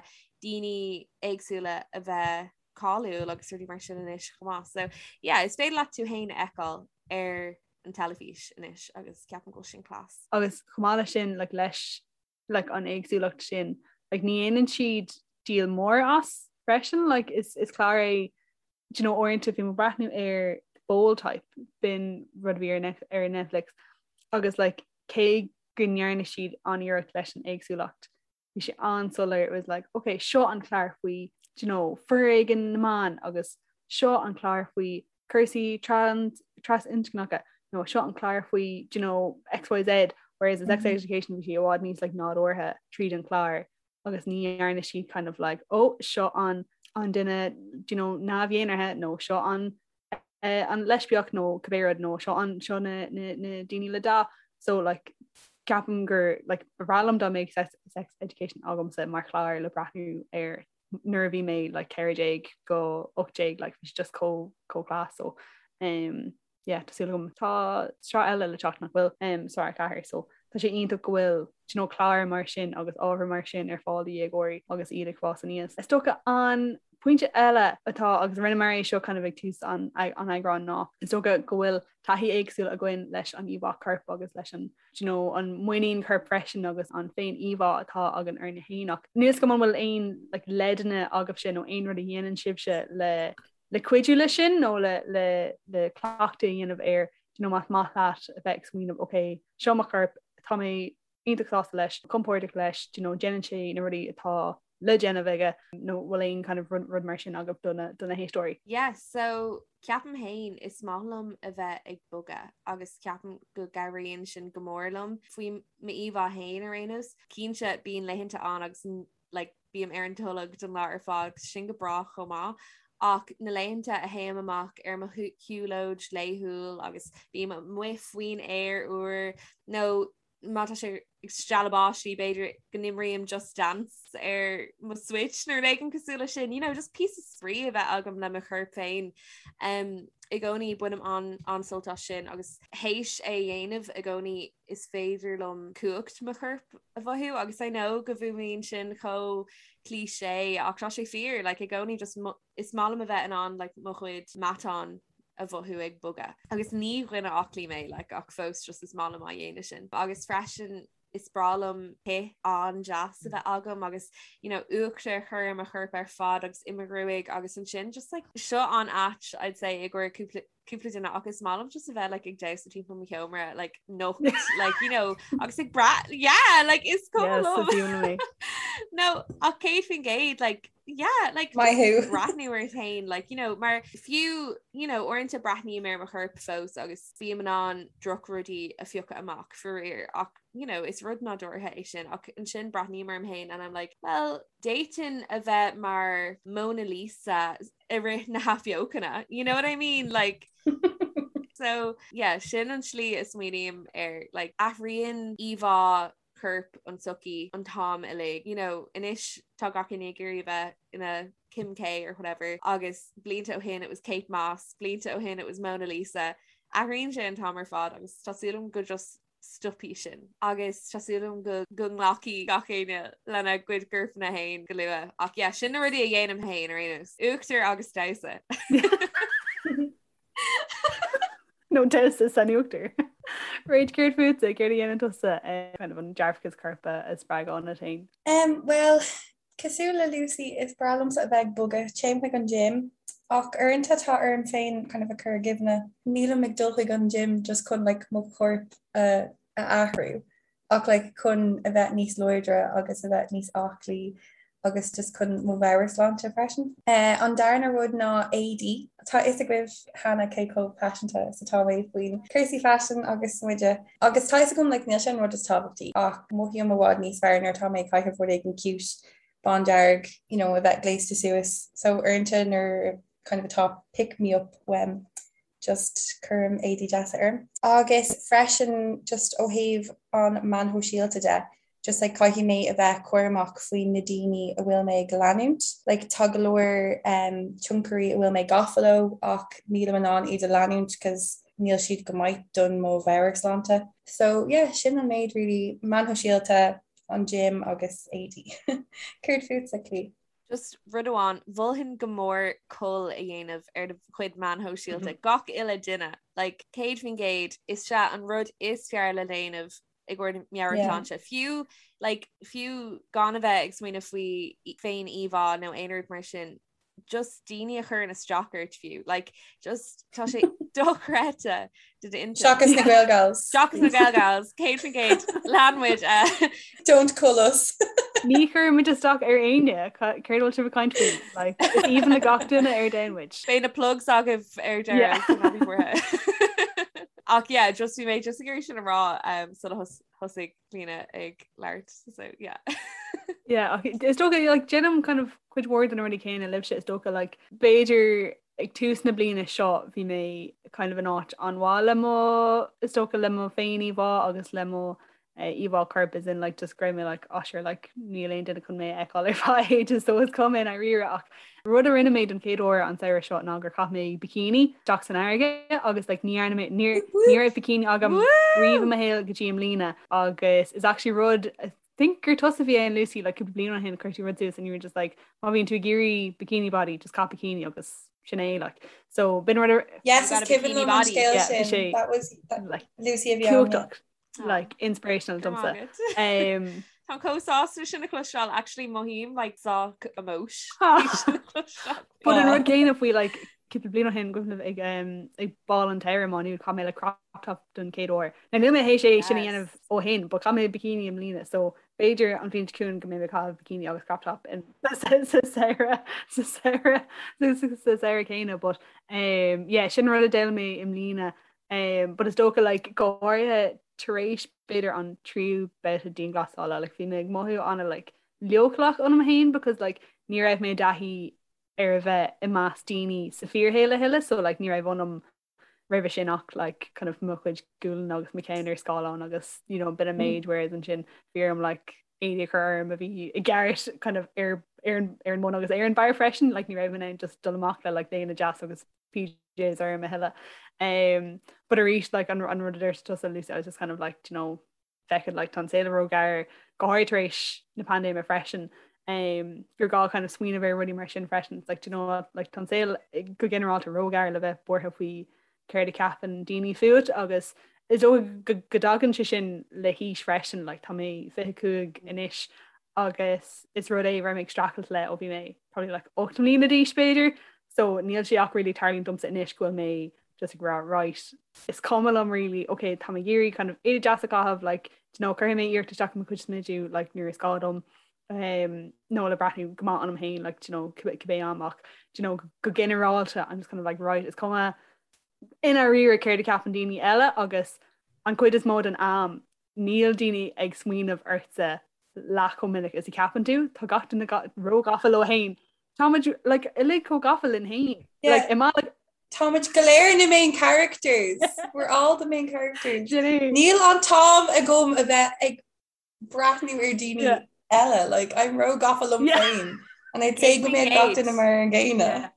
daoine éagsúla a bheith cáiliúil agus rudaí mar sin anois chomh maith. So yeah, is féidir leat tú féin a fheiceáil ar an teilifís anois agus ceapaim go bhfuil sin class. Agus chomh maith leis sin like, leis like, an éagsúlacht sin like, ní dhéanann siad díol mór as freisin like, is, is clár é do you know, uaireanta bhí mé ag breathnú ar Bold Type b'in rud a bhí ar, ar Netflix agus like, cé go ndearna siad an-iarracht leis an éagsúlacht bhí sé an-soiléir it was like ok seo an clár faoi do you know foréigean na mban agus seo an clár faoi cúrsaí trans trasinscneacha nó seo an clár faoi do you know XYZ whereas in sex mm -hmm. education bhí sé i bhfad níos like nádúrtha tríd an clár agus ní dhearna siad kind of like oh seo an an duine do you know neamh-dhénártha nó seo an uh, an leispiach nó cibé rud nó seo an seo na, na, na daoine le dath so like ceapaim gur like ba bhreá liom dá mbeadh sex, sex education agamsa mar chlár le breathnú air nuair a bhí mé like 14 go 18 like bhí just chomh chomh class so um, yeah, tá súil agam tá sraith eile le teacht nach bhfuil um, sraith 4 so tá sé iontach go bhfuil you know, clár mar sin agus ábhar mar sin ar fáil do dhéagóirí agus iad ag fás aníos. Is dócha an pointe eile atá agus rinneamar é seo kind of ag tús an an eagráin ná is dócha go bhfuil taithí éagsúil againn leis an íomhá coirp agus leis an you know, an muinín coirp freisin agus an féin íomhá atá againn orainn féin ach níl a fhios agam an bhfuil aon like, leideanna agaibhse nó aon rud a dhéanann sibhse le. Le cuidiú leis sin nó le le le cleachtadh a dhéanamh air, do you know, más maith leat a bheith ag smaoineamh ok, seo mo chorp, tá mé iontach sásta leis, compordach leis, do you know, déanann sé na rudaí atá le déanamh aige nó bhfuil aon kind of rud, rud mar sin agaibh do na, do na héisteoirí? Yeah, so ceapaim féin is maith liom a bheith ag bogadh agus ceapaim go gcabhraíonn sin go mór liom faoi m'íomhá féin ar aon nós. Cinnte bíonn laethanta ann agus like bím ar an tolg don lá ar fad agus sin go breá chomh maith ach na laethanta a théim amach ar mo shiúlóid laethúil agus bím amuigh faoin aer úr nó má tá sé ag stealladh báistí b'fhéidir go n-imrím Just Dance ar mo Switch nó rud éigin cosúil leis sin, you know, just píosa spraoi a bheith agam le mo chorp féin. Um, I gcónaí bainim an an-sult as sin agus théis é a dhéanamh i gcónaí is féidir liom cumhacht mo choirp a mhothú agus I know go bhfuaimníonn sin chomh cliché ach tá sé fíor like, i gcónaí just is maith liom a bheith in ann like, mo chuid matán a mhothú ag bogadh. Agus ní dhuine aclaí mé like, ach fós just is maith liom á dhéanamh sin. Agus freisin is breá liom cith an-deas a bheith agam agus you know, uachtar a chur ar mo chorp ar fad agus i mo ghruaig agus ansin just like, seo an-ait I'd say i gcomhair cúpla cúpla duine ach is maith liom just a bheith like ag damhsa timpeall mo sheomra like nocht like you know agus ag brath yeah like is cuma liom no ach 100% like yeah like Maith thú. breathnú ort féin like you know mar fiú you know uaireanta breathnaím ar mo chorp fós agus bím in ann drochrudaí a phiocadh amach faraor ach you know is rud nádúrtha é sin ach ansin breathnaím orm féin and I'm like well d'fhéadfainn a bheith mar Mona Lisa i rith na hathbheochana you know what I mean like so yeah sin an slí a smaoiním air like athraíonn íomhá choirp an tsochaí an t-am uilig you know anois tá gach éinne ag iarraidh a bheith ina Kim K or whatever agus blianta ó shin it was Kate Moss blianta ó shin it was Mona Lisa athraíonn sé an t-am ar fad agus tá súil agam go just stopfaidh sin agus tá súil agam go go nglacfaidh gach éinne lena gcuid corpanna féin go luath. Ach yeah, sin na rudaí a dhéanaim féin ar aon nós. Uachtar agus damhsa. Nó damhsa san uachtar. Rach céard fútsa, céard a dhéanann tusa eh, kind of an dearfachas coirp a spreagadh ionat féin? Um, well, Cosúil le Lucy, is breá liomsa a bheith ag bogadh, téim chuig an gym, ach uaireanta tá orm féin kind of a chur i gcuimhne, nílim ag dul chuig an gym just chun like mo chorp a a athrú, ach like chun a bheith níos láidre agus a bheith níos aclaí agus just chun mo mheabhairshláinte freisin. An darna rud ná éadaí. Tá fhios agaibh cheana cé chomh paiseanta is atá mé faoin cúrsaí faisin agus smideadh agus tá fhios agam like níl sé an rud is tábhachtaí ach mothaím i bhfad níos fearr nuair atá mé ag caitheamh rud éigin cute bándearg you know a bheith gléasta suas so uaireanta nuair kind of atá pick me up uaim just cuirim éadaí deasa orm. Agus freisin just ó thaobh an meáin shóisialta de just like caithfidh mé a bheith cúramach faoi na daoine a bhfuil mé ag leanúint. Like tá go leor um, tionchairí a bhfuil mé gafa leo ach nílim in ann iad a leanúint cos níl siad go maith don mo mheabhairshláinte. So yeah, sin an méid really meáin shóisialta, an gym agus éadaí. Céard fútsa, Clí? Just rud amháin, mholfainn go mór cull a dhéanamh ar do chuid meáin shóisialta. Gach uile duine, like 100% is é an rud is fearr le déanamh i gcomhair meabhairshláinte. Fiú like, fiú gan a bheith ag smaoineamh faoi féin íomhá nó aon rud mar sin, just daoine a chuireann isteach ort fiú. Like, just tá sé dochreidte do d'intinn. Seachas na Gaelgals. Seachas na Gaelgals, 100% lean muid. Uh, Don't cull us. Ní chuirimid isteach ar éinne céard bhfuil sibh ag caint faoi. Like, is aoibhinn le gach duine ar domhan muid. Beidh na plugs agaibh ar deireadh. Yeah. Ach yeah, just bhí mé just ag iarraidh sin a rá um, sula thos- thosaigh Clíona ag labhairt so yeah. Yeah, ach is dócha like, déanaim kind of cuid mhór de na rudaí céanna libhse is dócha like, b'fhéidir ag tús na bliana seo bhí mé kind of in áit an-mhaith le mo is dócha le mo féin-íomhá agus le mo íomhá coirp as in like just go raibh mé like ah sure like níl aon duine chun mé a fheiceáil ar feadh ages so is cuma i ndáiríre ach rud a rinne mé don chéad uair an samhradh seo ná gur chaith mé bikini isteach san fharraige agus like ní dhearna mé níor ní raibh bikini agam riamh i mo shaol go dtí i mbliana agus is actually rud I think gur tusa a bhí ann Lucy like cúpla bliain ó shin chuir tú rud suas and you were just like má bhíonn tú ag iarraidh bikini body just caith bikini agus sin é like so b'in rud Yes, is cuimhin liom an scéal sin. That was that, like Lucy a bhí ann. like inspirational domsa. Um, Tá chomh sásta sin a chloisteáil actually mothaím like sách emosh. But an rud céanna faoi like Cúpla bliain ó shin cuimhin liom ag ag bál an tsamhraidh i Má Nuad chaith mé like crop top don chéad uair. Now níl mé théis é sin a dhéanamh ó shin, but chaith mé bikini i mbliana so b'fhéidir an bhliain seo chugainn go mbeidh mé ag caitheamh bikini agus crop top in sa samhradh sa samhradh sa samhradh céanna but um, yeah, sin rud a d'fhoghlaim mé i mbliana um, but is dócha like, go háirithe tar éis b'fhéidir an tríú babhta dianghlasála like, bhí mé ag mothú ana like, leochaileach ionam féin because like, ní raibh mé i dtaithí ar a bheith i measc daoine sa fíorshaol a thuilleadh so like ní raibh ionam roimhe sin ach like kind of mo chuid gualainn agus mo cheann ar scáileán agus you know b'in an méid whereas ansin bhí orm like éadaí a chur orm a bhí i gceart kind of ar ar an ar an mbun agus ar an barr freisin like ní raibh mé in ann just dul amach le like léine deas agus PJs orm a thuilleadh. Um, but arís like an an rud a dúirt tusa Lucy I was just kind of like you know feck it like tá an saol róghearr go háirithe tar éis na paindéime freisin um, gur gá kind of smaoineamh ar rudaí mar sin freisin it's like, you know what, like, tá an saol go ginearálta róghearr le bheith buartha faoi céard a cheapann daoine fút agus is dóigh go go dtagann sé sin le haois freisin like, tá mé 25 anois agus is rud é raibh mé ag streachailt le ó bhí mé probably like 8 mbliana d'aois b'fhéidir so níl sé ach really tarlaíonn domsa anois go bhfuil mé just ag rá right is cuma liom really ok tá mé ag iarraidh kind of éadaí deas a chaitheamh like do you know cuirfidh mé iarracht isteach i mo chuid smidiú like nuair is gá dom um, nó le breathnú go maith ionam féin like do you know cibé am ach do you know go ginearálta I'm just kind of like right is cuma i ndáiríre céard a cheapann daoine eile agus an chuid is mó den am níl daoine ag smaoineamh ortsa leath chomh minic is a cheapann tú tá gach duine róghafa leo féin Táimid like, uilig chomh gafa linn féin. Like, i like, Táimid go léir na main characters. We're all the main characters. Níl an t-am agam a bheith ag breathnú ar daoine eile, like, I'm róghafa liom féin. And I'd say go mbeadh gach duine mar an gcéanna.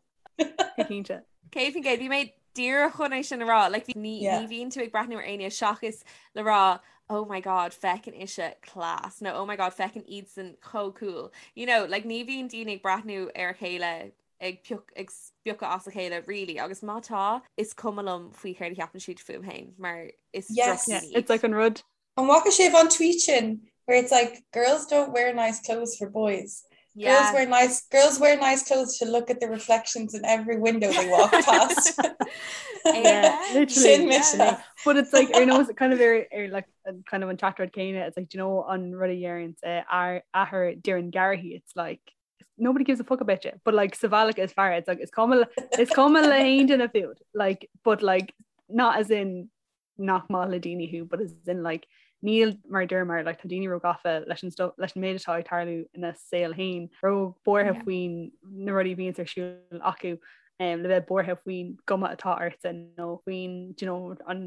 Cinnte. 100% bhí mé díreach chun é sin a rá, like, ní ní bhíonn tú ag breathnú ar éinne seachas le rá oh my god feiceann ise class nó oh my god feiceann iadsan chomh cool. You know, like, ní bhíonn daoine ag breathnú ar a chéile ag pioc ag spiocadh as a chéile really agus má tá is cuma liom faoi céard a cheapann siad fúm féin mar is Yes. Yeah, it's like an rud An bhfaca sibh an tweet sin where it's like girls don't wear nice clothes for boys. Yeah. Girls wear nice girls wear nice clothes to look at the reflections in every window they walk past. yeah, literally. Yeah. But it's like ar nós kind of ar, ar like kind of an teachtaireacht céanna it's like do you know an rud a deireann uh, athair Doireann Garrihy it's like nobody gives a fuck about you but like sa bhealach is fearr it's like is cuma is cuma le haon duine fút like but like not as in nach maith le daoine thú but as in like níl mar dúramar like tá daoine róghafa leis an stuff leis an méid atá ag tarlú ina saol féin róbhuartha yeah. faoin na rudaí a bhíonns ar siúl acu um, le bheith buartha faoin gcuma atá ortsa nó faoin you know, an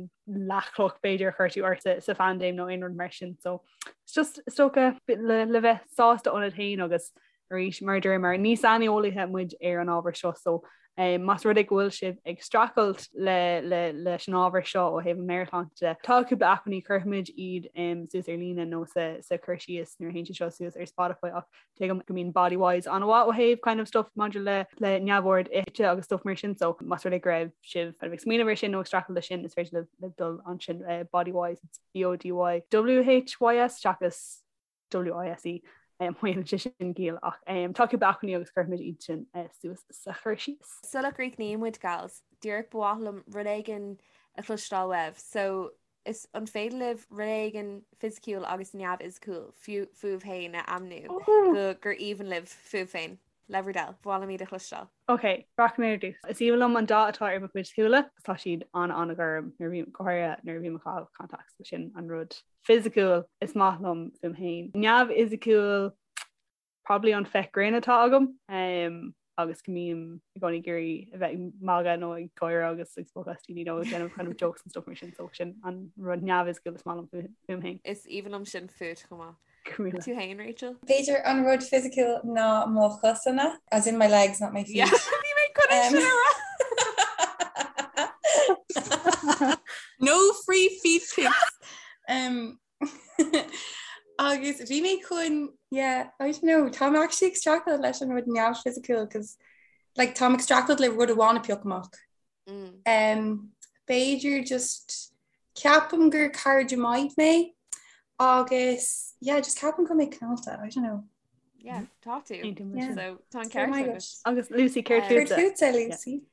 leathchloch b'fhéidir a chuir tú ort sa phaindéim nó aon rud mar sin so it's just is dócha le, le bheith sásta ionat féin agus Arís, mar a dúramar, ní saineolaithe muid ar an ábhar seo so más rud é go bhfuil sibh ag streachailt leis an ábhar seo ó thaobh an mheabhairshláinte de, tá cúpla acmhainní, cuirfimid iad suas ar líne nó sa chur síos nuair a théann sé seo suas ar Spotify ach tuigim go mbíonn Bodywhys an-mhaith ó thaobh kind of stuff maidir le le neamhord ite agus stuff mar sin so más rud é go raibh sibh kind of ag smaoineamh ar sin nó ag streachailt leis sin is féidir libh dul ansin Bodywhys, it's B-O-D-Y W-H-Y-S seachas WISE má dhéanann sé sin ciall ach tá cúpla acmhainní agus cuirfimid iad sin suas sa chur síos. Sula gcríochnaíonn muid gals, díreach ba mhaith liom rud éigin a chloisteáil uaibh. So is an féidir libh rud éigin fisiciúil agus neamhfhisiciúil fúibh féin a ainmniú go gur aoibhinn libh fúibh féin? Le bhur dtoil, ba mhaith liom iad a chloisteáil. Ok, rachaidh mé ar dtús. Is aoibhinn liom an dath atá ar mo chuid súile agus tá siad an-an-ghorm nuair a bhím, go háirithe nuair a bhím ag caitheamh contacts, so sin an rud fisiciúil is maith liom fúm féin. Neamhfhisiciúil, probably an féith grinn atá agam agus go mbím i gcónaí ag iarraidh a bheith ag magadh nó ag gáire agus ag spochadh as daoine nó ag déanamh kind of jokes and stuff mar sin, so sin an rud neamhfhisiciúil is maith liom fúm féin. Is aoibhinn liom sin fút chomh maith. Tú féin, Rachel? B'fhéidir an rud fisiciúil ná mo chosanna, as in my legs, not my feet. Bhí mé chun é sin a rá! No free feet pics! Um, agus bhí mé chun, yeah, I don't know, táim actually ag streachailt leis an rud neamhfhisiciúil, cos like, táim ag streachailt le rud amháin a phiocadh amach. Mm. Um, b'fhéidir just ceapaim gur cairde maith mé agus yeah, just ceapaim go mé cineálta, I don't know. Yeah, tá tú. Yeah. So tá an ceart agat. Agus Lucy céard fútsa? Lucy.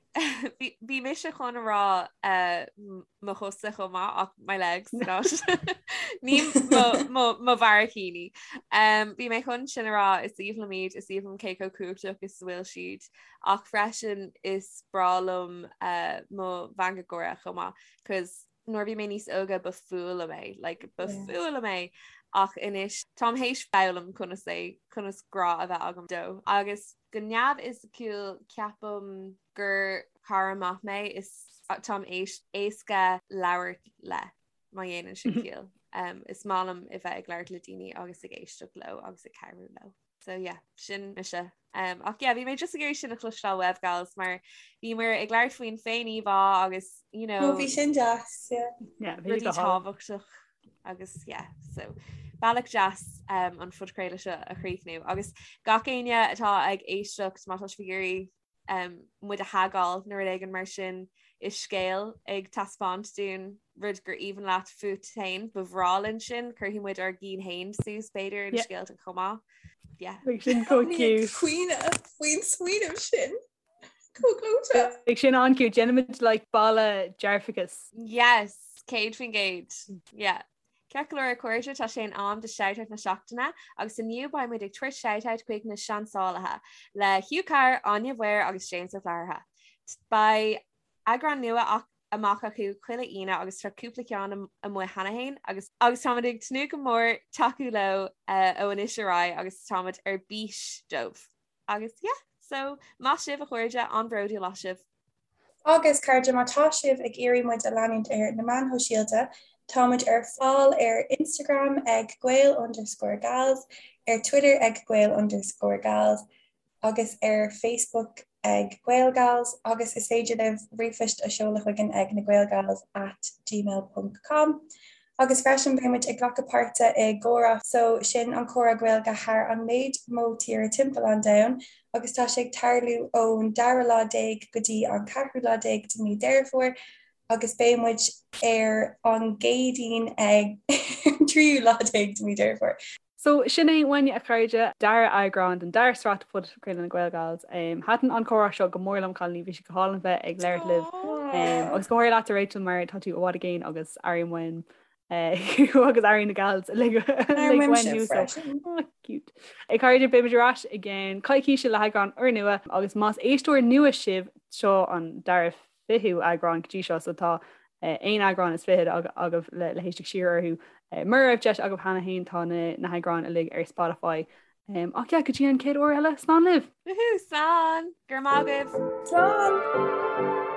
Bhí mise chun a rá eh, mo chosa chomh maith ach my legs not ní mo bharraicíní. Um, bhí mé chun sin a rá is aoibhinn liom iad, is aoibhinn liom cé chomh cumhachtach is a bhfuil siad ach freisin is breá liom uh, mo mheangadh gáire chomh maith cos nuair a bhí mé níos óga ba fuath liom é, like, ba fuath liom é ach anois táim théis foghlaim conas é conas grá a bheith agam dó agus go neamhfhisiciúil ceapaim gur cara maith mé is táim éasca labhairt le má dhéanann sin ciall. Um, is maith liom a bheith ag labhairt le daoine agus ag éisteacht leo agus ag cabhrú leo. So yeah, sin mise. Um, ach yeah, bhí mé just ag iarraidh sin a chloisteáil uaibh gals mar bhíomar ag labhairt faoin féin-íomhá agus you know, oh, bhí sin deas, yeah. Yeah, bhí rudaí tábhachtach agus yeah, so bealach deas um, an phodchraoladh seo a chríochnú agus gach éinne atá ag éisteacht má tá sibh ag iarraidh um, muid a thagáil nó rud éigin mar sin i scéal ag taispeáint dúinn rud gur aoibhinn leat fút féin, ba bhreá linn sin, cuirfidh muid ár gcinn féin suas b'fhéidir in scéalta chomh maith. Yeah. Beidh sin chomh cute. Caoineadh faoin smaoineamh sin. Chomh gleoite. Beidh sin an-cute. Déanfaimid like balla dearfachais. Yes, 100%. Yeah. Ceart go leor a chairde, tá sé in am do Shoutout na Seachtaine agus inniu beidh muid ag tabhairt shoutout chuig na Seansálaithe, le Hugh Carr, Áine Mhaoir agus James Ó Flathartha. Beidh eagrán nua amach acu chuile Aoine agus tá cúpla ceann amuigh cheana féin agus agus táimid ag tnúth go mór tacú leo ó anois ar aghaidh agus táimid ar bís dóibh. Agus yeah, so maith sibh a chairde, an-bhródúil as sibh. Agus cairde, má tá sibh ag iarraidh muid a leanúint ar na meáin shóisialta, tá muid ar fáil ar Instagram ag gael underscore gals, ar Twitter ag gael underscore gals agus ar Facebook ag GaelGals agus is féidir libh ríomhphoist a sheoladh chugainn ag nagaelgals at gmail ponc com. Agus freisin beidh muid ag glacadh páirte i gComhrá so sin an comhrá Gaeilge thar an méid mó tíre timpeall an domhain agus tá sé ag tarlú ón dara lá déag go dtí an ceathrú lá déag de mí Deireadh Fómhair agus beidh muid ar an gCéadaoin ag tríú lá déag de mí Deireadh Fómhair. So, sin é uainne a chairde, dara eagrán den dara sraith de Phodchraoladh na GaelGals. Thaitin an comhrá seo go mór liom, cailíní, bhí sé go hálainn bheith ag labhairt libh. Agus go háirithe leatsa Rachel mar tá tú i bhfad i gcéin agus airím uaim thú agus airím na gals uilig uaim thú so oh, cute. A chairde, beimid ar ais i gceann coicíse le heagrán úrnua agus más éisteoir nua sibh seo an dara fichiú eagrán go dtí seo so tá aon eagrán is fichead agaibh le le héisteacht siar orthu. Mura raibh deis agaibh cheana féin tá na na heagráin uilig ar Spotify. Ach yeah, go dtí an chéad uair eile, slán libh! Woohoo, slán! Go raibh maith agaibh! Slán!